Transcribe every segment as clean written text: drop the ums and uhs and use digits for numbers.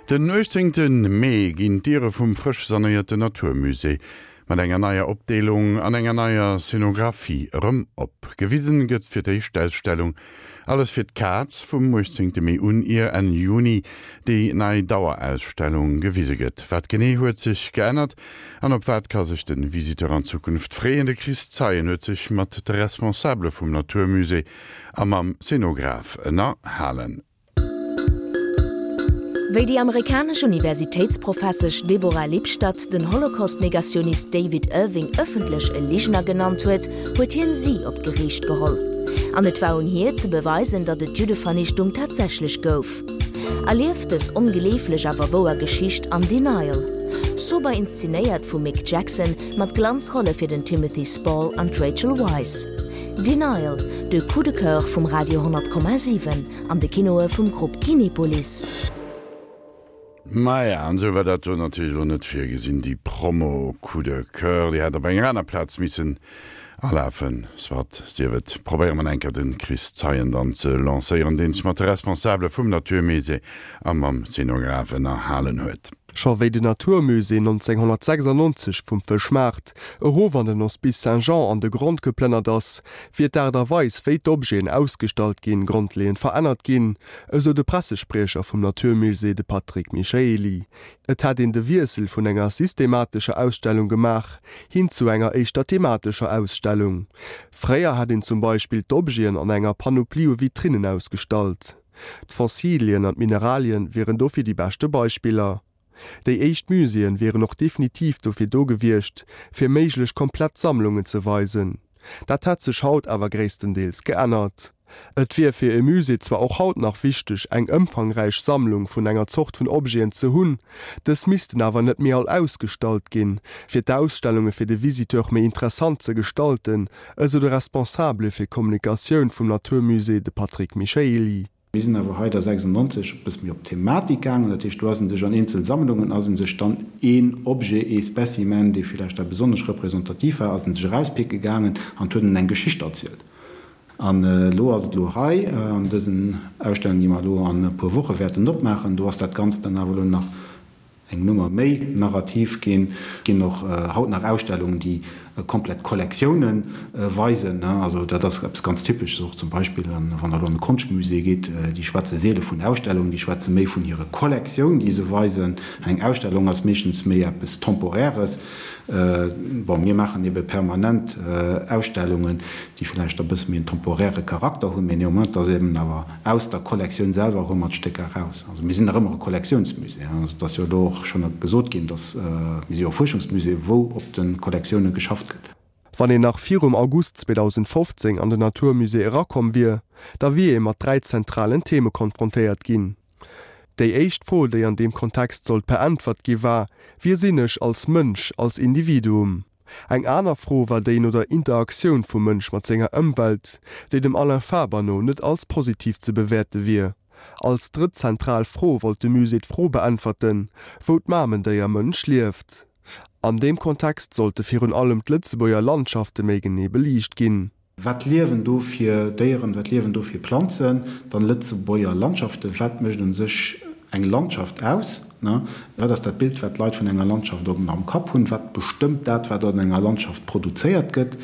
Den 18 Mee ginn d'Diere vum frësch sanéierte Natur Musée mat enger neier Opdeelung an enger neier Scenographie erëm op. Gewisen gëtt fir d'éischt d'Ausstellung Alles fir d'Kaz vum 18 Mee un, ier Enn Juni déi nei Dauerausstellung gewise gëtt. Wat genee huet sech geännert an op wat ka sech de Visiteur an Zukunft freeën? De Chris Zeien huet sech mat de Responsabele vum Natur Musée a mam Szenograph ënnerhalen. Wéi déi amerikanesch Universitéitsprofessesch Deborah Lipstadt den Holocaust-Negationist David Irving ëffentlech e Ligner genannt huet, huet hien si op d'Geriicht geholl. An et war un hir ze beweisen, datt et d'Juddevernichtung tatsächlech gouf. Erlieft dës ongleeflech awer wouer Geschicht an Denial. Sober inszenéiert vum Mick Jackson, mat Glanzrolle fir den Timothy Spall an d'Rachel Weisz. Denial, de Coup de Coeur vum Radio 100,7 an de Kinoe vum Grupp Kinepolis. Maja, an esou war dat do natierlech elo net virgesinn, déi Promo Coup de Coeur, déi hätt op enger aner Plaz missen alafen. Soit, sief et. Probéiere mer enker de Chris Zeien dann ze lancéieren, deen sech mat de Responsabele vum Natur Musée a mam Szenograph ënnerhalen huet. Scho wéi den Natur Musée 1996 vum Fëschmaart erof an den Hospice Saint-Jean an de Grond geplënnert ass, wier d'Aart a Weis, wéi d'Objeten ausgestallt ginn, grondleeënd verännert ginn, esou de Pressespriecher vum Natur Musée, de Patrick Michaely. Et hätt een de Wiessel vun enger systematescher Ausstellung gemaach, hin zu enger éischter thematescher Ausstellung. Fréier hätt een zum Beispill d'Objeten an enger Panoplie u Vitrinnen ausgestallt. D'Fossilien an d'Mineralien wieren dofir déi beschte Beispiller. Déi éischt Muséeën wieren och definitiv dofir do gewiescht, fir méiglech komplett Sammlungen ze weisen. Dat hätt sech haut awer gréisstendeels geännert. Et wier fir e Musée zwar och haut nach wichteg, eng ëmfangräich Sammlung vun enger Zort vun Objeten ze hunn, dës missten awer net méi all ausgestallt ginn, fir d'Ausstellunge fir de Visiteur méi interessant ze gestalten, esou de Responsabele fir Kommunikatioun vum Natur Musée, de Patrick Michaely. Mir sinn awer hei da 96 e bësse méi op d'Thematik gaangen. Dat heescht, do ass ee sech an eenzel Sammlungen, ass ee sech dann een Objet, ee Specimen, dee villäicht da besonnesch representativ war, ass ee sech erauspicke gaangen an huet en eng Geschicht erzielt. An elo ass et elo hei an dësen Ausstellungen, déi mer elo an e puer Woche wäerten opmaachen, do ass dat Ganzt dann awer elo nach eng Nummer méi narrativ ginn. Et ginn och haut nach Ausstellungen, déi komplett Kollektioune weisen. Also dat ass eppes ganz Typesches och zum Beispill, wann Der elo an e Konschtmusée gitt, déi schwätze seele vun Ausstellungen, déi schwätze méi vun hire Kollektioun, déi se weisen. Eng Ausstellung ass meeschtens méi eppes Temporäres. Bon, mir maachen ebe permanent Ausstellungen, déi vläicht e bësse méi en temporäre Charakter hunn, mee néanmoins, et ass eben awer aus der Kollektioun selwer hu mer d'Stécker eraus. Also mir sinn nach ëmmer e Kollektiounsmusée. Also et ass jo elo och schonn gesot ginn, dass, mir si jo e Fuerschungsmusée, wou op de Kollektioune geschafft gëtt. Wann een nach virum August 2015 an den Natur Musée erakomm wier, da wier ee mat 3 zentralen Theme konfrontéiert ginn. Déi éischt Fro, déi an deem Kontext sollt beäntwert gi war, Wie sinn ech als Mënsch, als Individuum? Eng aner Fro war déi no der Interaktioun vum Mënsch mat senger Ëmwelt, déi dem Alain Faber no net als positiv ze bewäerte wier. Als drëtt zentral Fro wollt de Musée d'Fro beäntwerten, wou d'Mamendéier Mënsch lieft. An deem Kontext sollte virun allem d'Lëtzebuerger Landschafte méi genee beliicht ginn. Wat liewen do fir Déieren, wat liewen do fir Planzen? Dann Lëtzebuerger Landschaften, wat mécht un sech eng Landschaft aus? Wat ass dat Bild, wat d'Leit vun enger Landschaft am Kapp hunn? Wat bestëmmt dat, wat an enger Landschaft produzéiert gëtt?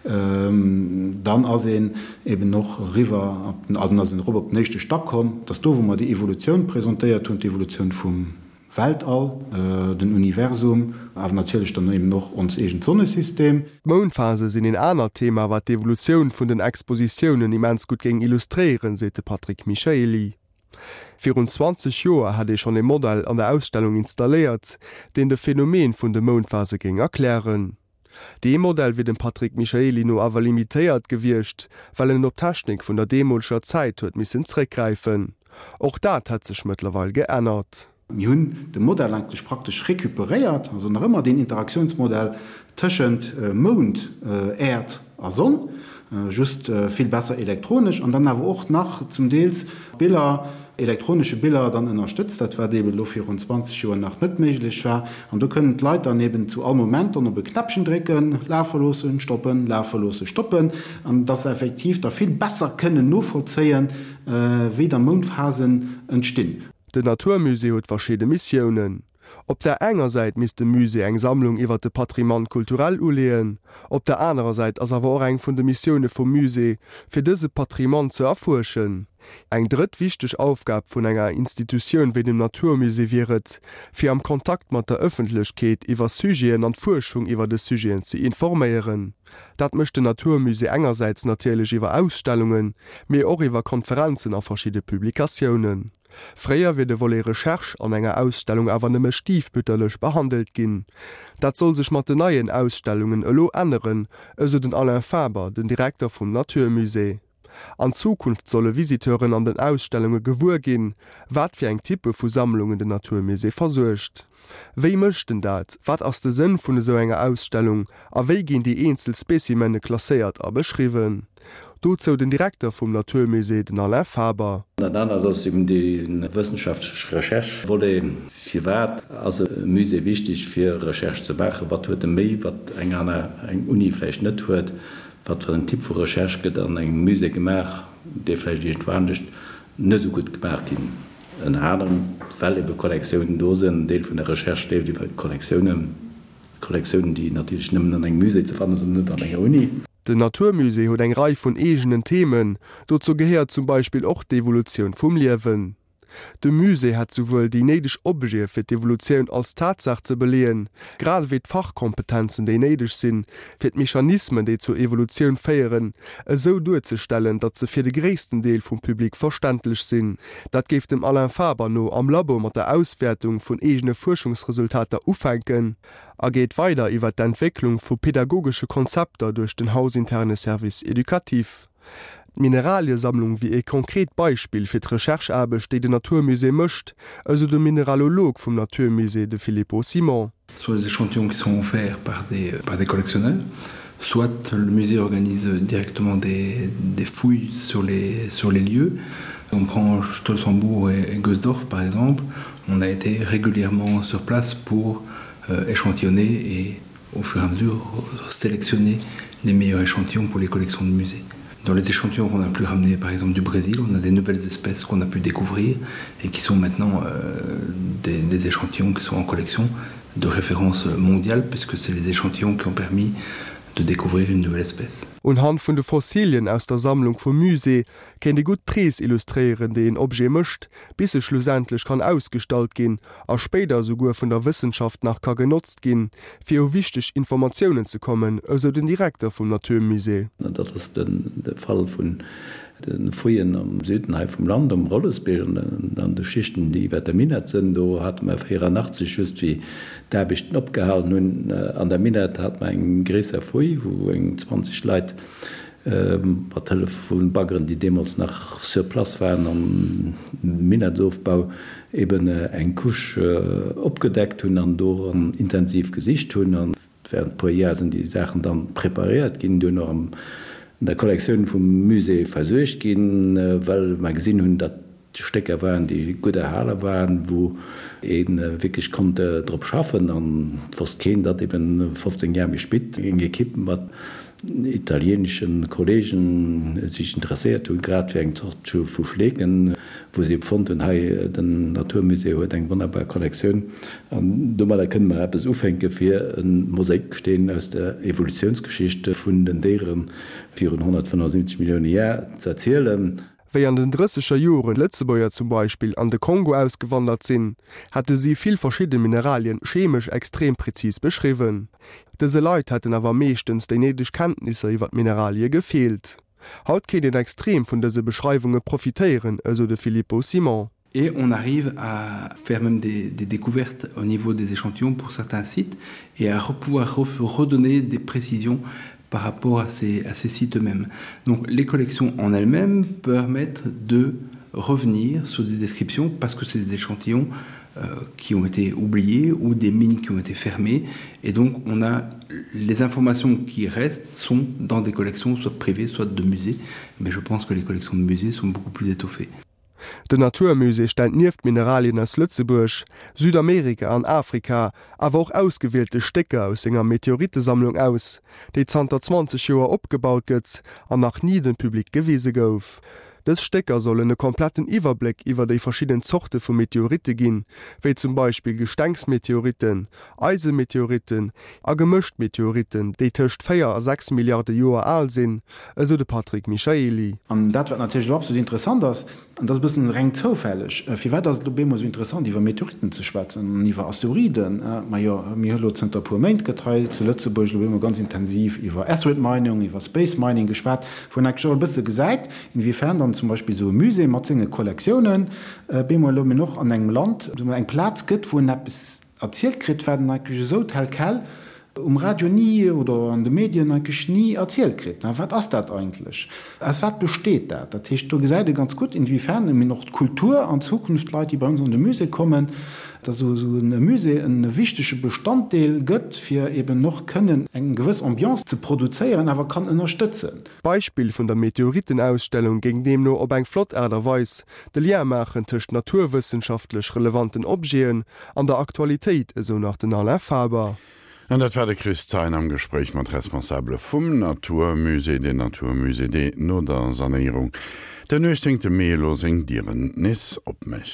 Dann ass een eben och eriwwer op den, also dann ass een erop op den éischte Stack komm, dat ass do, wou mer déi Evolutioun presentéiert hunn, d'Evolutioun vum Weltall, den Universum, awer natierlech dann eben och ons eegent Sonnesystem. D'Moundphase sinn een anert Thema, wat d'Evolutioun vun den Expositiounen immens gutt géing illustréieren, seet de Patrick Michaely. Virun 20 Joer hätt ee schonn ee Modell an der Ausstellung installéiert, deen de Phänomen vun de Moundphase géing erklären. Dee Modell wier dem Patrick Michaely no awer limitéiert gewiescht, well en op d'Technik vun der deemoleger Zäit huet missen zréckgräifen. Och dat hätt sech mëttlerweil geännert. Mir hunn de Modell eigentlech praktesch recuperéiert, also nach ëmmer deen Interaktiounsmodell tëschent Mound, Äerd a Sonn, just vill besser elektronesch an dann awer och nach zum Deels Biller, elektronesche Biller dann ënnerstëtzt, dat wat eeben elo virun 20 Joer nach net méiglech war. An do kënnen d'Leit dann eeben zu all Moment dann op e Knäppchen drécken, lafe loossen, stoppen, lafe loossen, stoppen, an dass se effektiv da vill besser kënnen novollzéien, wéi da Moundphasen entstinn. Den Natur Musée huet verschidde Missiounen. Op der enger Säit misst de Musée eng Sammlung iwwer de Patrimoine culturel uleeën, op der anerer Säit ass awer och eng vun de Missioune vum Musée, fir dëse Patrimoine ze erfuerschen. Eng drëtt wichteg Aufgab vun enger Institutioun wéi dem Natur Musée wier et, fir am Kontakt mat der Ëffentlechkeet iwwer Sujeten an d'Fuerschung iwwer des Sujeten ze informéieren. Dat mécht den Natur Musée engersäits natierlech iwwer Ausstellungen, mee och iwwer Konferenzen a verschidde Publikatiounen. Fréier wier de Volet Recherche an enger Ausstellung awer nëmme stiefmütterlech behandelt ginn. Dat soll sech mat den neien Ausstellungen elo änneren, esou den Alain Faber, den Direkter vum Natur Musée. An Zukunft solle Visiteuren an den Ausstellunge gewuer ginn, wat fir eng Typpe vu Sammlungen den Natur Musée versuergt. Wéi mécht en dat? Wat ass de Sënn vun esou enger Ausstellung? A wéi ginn déi eenzel Specimene klasséiert a beschriwwen? Dozou den Direkter vum Natur Musée, den Alain Faber. Dat anert ass eben dee wëssenschaftlech Recherche-Volet. Firwat ass e Musée wichteg fir Recherche ze maachen? Wat huet e méi, wat eng aner, eng Uni vläicht net huet? Wat fir en Typ vu Recherche gëtt an engem Musée gemaach, dee vläicht iergendwou anescht net esou gutt gemaach ginn? Ënner anerem, well ebe Kollektiounen do sinn. En Deel vun der Recherche leeft iwwer Kollektiounen, Kollektiounen, déi natierlech nëmmen an engem Musée ze fanne sinn, net an enger Uni. Den Natur Musée huet eng Rei vun eegenen Themen. Dozou gehéiert zum Beispill och d'Evolutioun vum Liewen. De Musée hätt souwuel déi néideg Objete fir d'Evolutioun als Tatsaach ze beleeën, grad ewéi d'Fachkompetenzen déi néideg sinn, fir d'Mechanismen déi zur Evolutioun féieren, esou duerzestellen, datt se fir de gréissten Deel vum Public verständlech sinn. Dat géif dem Alain Faber no am Labo mat der Auswäertung vun eegene Fuerschungsresultater ufänken a geet weider iwwer d'Entwécklung vu pedagogesche Konzepter duerch den hausinterne Service éducatif. D'Mineraliesammlung wier ee konkret Beispill fir d'Recherche-Aarbecht, déi den Natur Musée mécht, esou de Mineralolog vum Natur Musée, de Filippo Simon. Soit les échantillons qui sont offerts par des, par des collectionneurs, soit le musée organise directement des, des fouilles sur les, sur les lieux. On prend Stolzenbourg et, et Gosdorf par exemple, on a été régulièrement sur place pour euh, échantillonner et au fur et à mesure sélectionner les meilleurs échantillons pour les collections de musées. Dans les échantillons qu'on a pu ramener par exemple du Brésil, on a des nouvelles espèces qu'on a pu découvrir et qui sont maintenant euh, des, des échantillons qui sont en collection de référence mondiale puisque c'est les échantillons qui ont permis de découvrir une nouvelle espèce. Unhand vun de Fossilien aus der Sammlung vum Musée kéint ee gutt d'Rees illustréieren, déi een Objet mécht, bis e schlussendlech kann ausgestallt ginn a spéider esouguer vun der Wëssenschaft nach ka genotzt ginn, fir u wichteg Informatiounen ze kommen, esou den Direkter vum Natur Musée. Dat ass de Fall vun de Fouillen am Süden hei vum Land, am Rollesbierg an an de Schichten, déi iwwer der Minett sënn. Do hate mer 84, just wéi d'Aarbechten opgehalen hunn an der Minett, hate mer eng gréisser Fouille, wou eng 20 Leit Mat Hëllef vu Baggeren, déi deemools nach sur place waren, am Minettsofbau eben eng Couche opgedeckt hunn an doran intensiv gesicht hunn. A während e puer Jar sinn déi Saachen dann preparéiert ginn, duerno an der Kollektioun vum Musée versuergt ginn, well mer gesinn hunn, datt Stécker waren, déi gutt erhale waren, wou ee wierklech konnt drop schaffen. An et wosst keen, datt eben 15 Jar méi spit eng Ekipp mat italieenesche Kollegen sech interesséiert hunn, grad fir eng Zort vu Schleeken, wou se ebe fonnt hunn, hei den Naturmusée huet eng wonnerbar Kollektioun an domadder kënne mer eppes ufänke fir e Mosaiksteen aus der Evolutiounsgeschicht vun den Déiere virun 175 Millioune Jar z'erzielen. Wéi an den drësseger Joren d'Lëtzebuerger zum Beispill an de Kongo ausgewandert sinn, hätte si vill verschidde Mineralien chemesch extrem prezis beschriwwen. Dëse Leit hätten awer meeschtens déi néideg Kenntnisser iwwer d'Mineralie gefeelt. Haut kéint een extrem vun dëse Beschreiwunge profitéieren, esou de Filippo Simon. Et on arrive à faire même des, des découvertes au niveau des échantillons pour certains sites et à pouvoir redonner des précisions par rapport à ces, à ces sites eux-mêmes. Donc les collections en elles-mêmes permettent de revenir sur des descriptions parce que c'est des échantillons euh, qui ont été oubliés ou des mines qui ont été fermées et donc on a les informations qui restent sont dans des collections soit privées soit de musées mais je pense que les collections de musées sont beaucoup plus étoffées. Den Natur Musée stellt nieft Mineralien aus Lëtzebuerg, Südamerika an Afrika awer och ausgewielte Stécker aus senger Meteorittesammlung aus, déi zanter 20 Joer opgebaut gëtt an nach ni dem Public gewise gouf. Dës Stécker sollen e kompletten Iwwerbléck iwwer déi verschidden Zorte vu Meteoritte ginn, wéi zum Beispill Gestengs-Meteoritten, Eisemeteoritten a gemëscht Meteoritten, déi tëscht 4 a 6 Milliarde Joer al sinn, esou de Patrick Michaely. An dat, wat natierlech elo absolut interessant ass, An dat ass e bëssen reng zoufälleg. Firwat ass et elo bemol esou interessant, iwwer Meteoritten ze schwätzen an iwwer Asteroiden? Majo, mir hu elo zënter e puer Méint gëtt hei zu Lëtzebuerg elo bemol ganz intensiv iwwer Asteroid Mining, iwwer Space Mining geschwat, wou een eigentlech och e bësse gesäit, inwiefern dann zum Beispill esou e Musée mat senge Kollektiounen bemol elo mol och an engem Land eng Plaz gëtt, wou en eppes Erzielt kritt, wat en eigentlech esou tel quel um Radio ni oder an de Medien eigentlech ni erzielt kritt. Wat ass dat eigentlech? Aus wat besteet dat? Dat heescht, do gesäit ee ganz gutt, inwiefern eben och d'Kultur an Zukunft, d'Leit, déi bei ons an de Musée kommen, dass esou e Musée e wichtege Bestanddeel gëtt, fir eben och kënnen eng gewëss Ambiance ze produzéieren, awer kann ënnerstëtzen. D'Beispill vun der Meteoritenausstellung géing deemno op eng flott Aart a Weis de Lien maachen tëscht naturwëssenschaftlech relevanten Objeten an der Aktualitéit, esou nach den Alain Faber. An dat war de Chris Thein am Gespréich mat Responsabele vum Natur Musée, den Natur Musée, dee no der Sanéierung den 18 Mee elo seng Dieren nees opmécht.